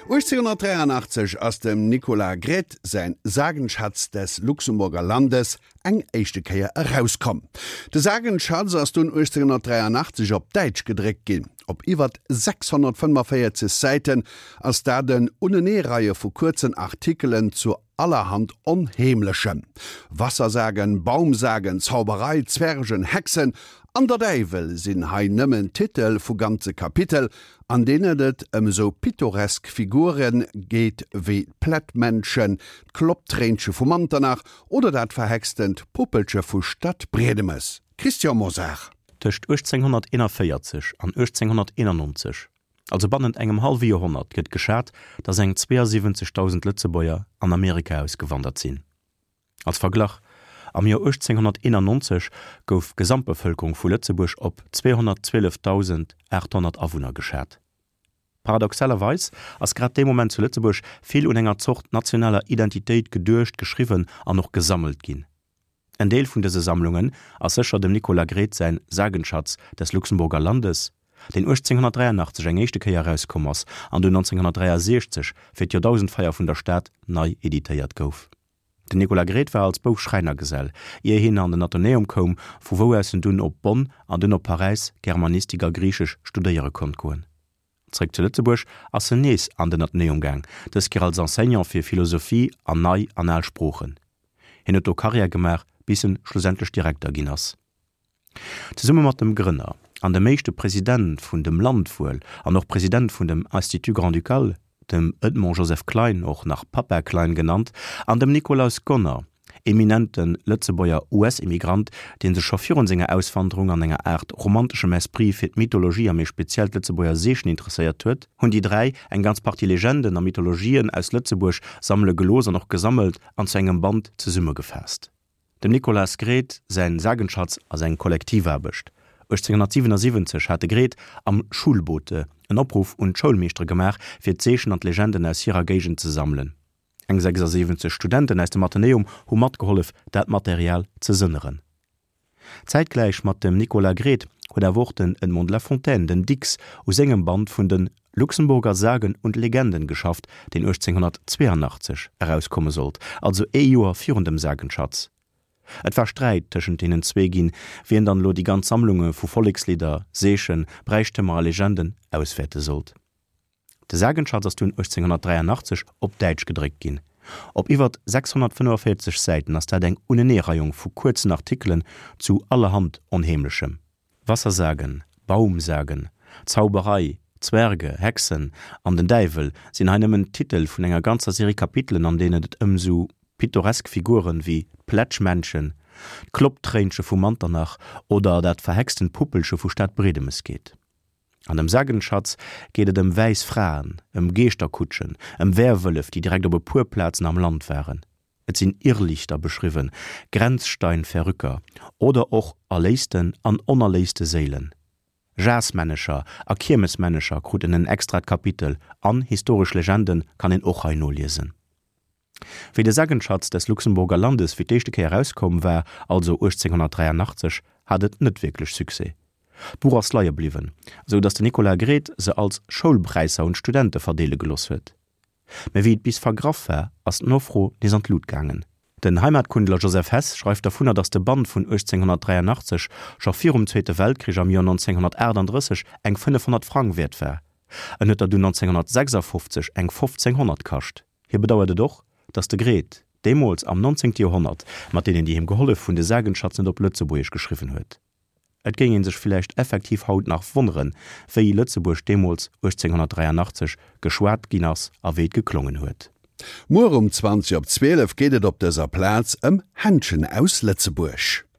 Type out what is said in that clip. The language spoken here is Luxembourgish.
1883 ass dem Nicolas Gredt säin Sagenschatz des Luxemburger Landes eng éischte Kéier erauskomm. De Sagenschatz ass dunn 1883 op Däitsch gedréckt ginn. Op iwwert 645 Säiten ass dat en Uneneereie vu kuerzen Artikelen zu allerhand Onheemlechem. Wassersagen, Baumsagen, Zauberei, Zwergen, Hexen an der Däiwel sinn hei nëmmen Titel vu ganze Kapitel, an deenen et ëm esou pittoresk Figure geet wéi d'Plättmännchen, d'Klopptréinche vu Manternach oder dat verhextent Puppelche vu Stadbriedemes. Christian Mosar. Tëscht 1841 an 1891, also bannent engem hallwe Joerhonnert, gëtt geschat, datt eng 72.000 Lëtzebuerger an Amerika ausgewandert sinn. Als Verglach, Am Joer 1891 gouf d'Gesamtbevëlkerung vu Lëtzebuerg op 212.800 Awunner geschat. Paradoxalerweis ass grad dee Moment zu Lëtzebuerg vill un enger Zort nationaler Identitéit geduecht, geschriwwen an och gesammelt ginn. En Deel vun dëse Sammlungen ass sécher dem Nicolas Gredt säin Sagenschatz des Luxemburger Landes, deen 1883 eng éischte Kéier erauskomm ass an dunn 1963 fir d'Joerdausendfeier vun der Stad nei editéiert gouf. Den Nicolas Gredt war als Bouf Schräinergesell, ier hien an den Athenäum koum, vu wou aus en dunn op Bonn an dunn op Paräis Germanistik a Griichesch studéiere konnt goen. Zréck zu Lëtzebuerg ass en nees an den Athenäum gaang, dës Kéier als Enseignant fir Philosophie an nei an al Sproochen. Hien huet do Karriär gemaach, bis en schlussendlech Direkter ginn ass. Zesumme mat dem Grënner an dem éischte President vun dem Land wuel an och President vun dem Institut Grand-Ducal, dem Edmond Joseph Klein, och nach Papa Klein genannt, an dem Nikolaus Gonner, eminente Lëtzebuerger US-Immigrant, dee sech scho virun senger Auswanderung an enger Aart romanteschem Esprit fir d'Mythologie a méi speziell d'Lëtzebuerger Seechen interesséiert huet, hunn déi 3 eng ganz Partie Legenden a Mythologien aus Lëtzebuerg sammele gelooss an och gesammelt an zu engem Band zesummegefaasst. Dem Nicolas Gredt säin Sagenschatz ass eng Kollektivaarbecht. 1877 hat de Gredt am Schulbote en Opruff un d'Schoulmeeschtere gemaach, fir d'Seechen an d'Legenden aus hirer Géigend ze sammelen. Eng 76 Studenten aus dem Athenäum hu matgehollef, dat Material ze sënneren. Zäitgläich mat dem Nicolas Gredt huet awer och den Edmond de la Fontaine, den Dicks, u sengem Band vun de Luxemburger Sagen und Legenden geschafft, deen 1882 erauskomme sollt, also ee Joer virun dem Sagenschatz. Et war Sträit tëschent deenen zwee ginn, wien dann elo déi ganz Sammlunge vu Vollekslidder, Seechen, Bräichtëmer a Legenden auswäerte sollt. De Sagenschatz ass dunn 1883 op Däitsch gedréckt ginn. Op iwwert 645 Säiten ass dat eng Uneneereiung vu kuerzen Artikelen zu allerhand Onheemlechem. Wassersagen, Baumsagen, Zauberei, Zwerge, Hexen an den Däiwel sinn hei nëmmen d'Titel vun enger ganzer Serie Kapitelen, an deenen et ëm sou pittoresk Figuren wéi d'Plätschmännchen, d'Klopptréinche vu Manternach oder dat verhextent Puppelche vu Stadbriedemes geet. An dem Sagenschatz geet et ëm wäiss Fraen, ëm Geeschterkutschen, ëm Werwëllef, déi direkt op e puer Plazen am Land waren. Et sinn Irrlichter beschriwwen, Grenzsteinverrücker oder och erléisten an onerléiste Séilen. Jasmännecher a Kiermesmännecher kruten en extrat Kapitel an historesch Legende kann een och hei noliesen. Wéi de Sagenschatz des Luxemburger Landes fir d'éischte Kéier erauskomm war, also 1883, hat et net wierklech Succès. D'Buch ass leie bliwwen, sou datt de Nicolas Gredt se als Schoulpräisser un d'Studente verdeele geloss huet. Mä wéi et bis vergraff war, ass d'Nofro nees an d'Lut gaangen. Den Heimatkundler Joseph Hess schreift dervunner, datt de Band vun 1883 scho virum Zweete Weltkrich am Joer 1938 eng 500 Frang wäert war. En huet der dunn 1956 eng 1500 kascht. Hie bedauert et och, datt de Gredt, deemools am 19. Joerhonnert, mat deenen, déi him gehollef hunn, de Sagenschatz net op Lëtzebuergesch geschriwwen huet. Et géing ee sech villäicht effektiv haut nach wonneren, wéi Lëtzebuerg deemools 1883 geschwat ginn ass a wéi et geklongen huet. Muer um 20 op 12 geet et op dëser Plaz ëm Händschen aus Lëtzebuerg.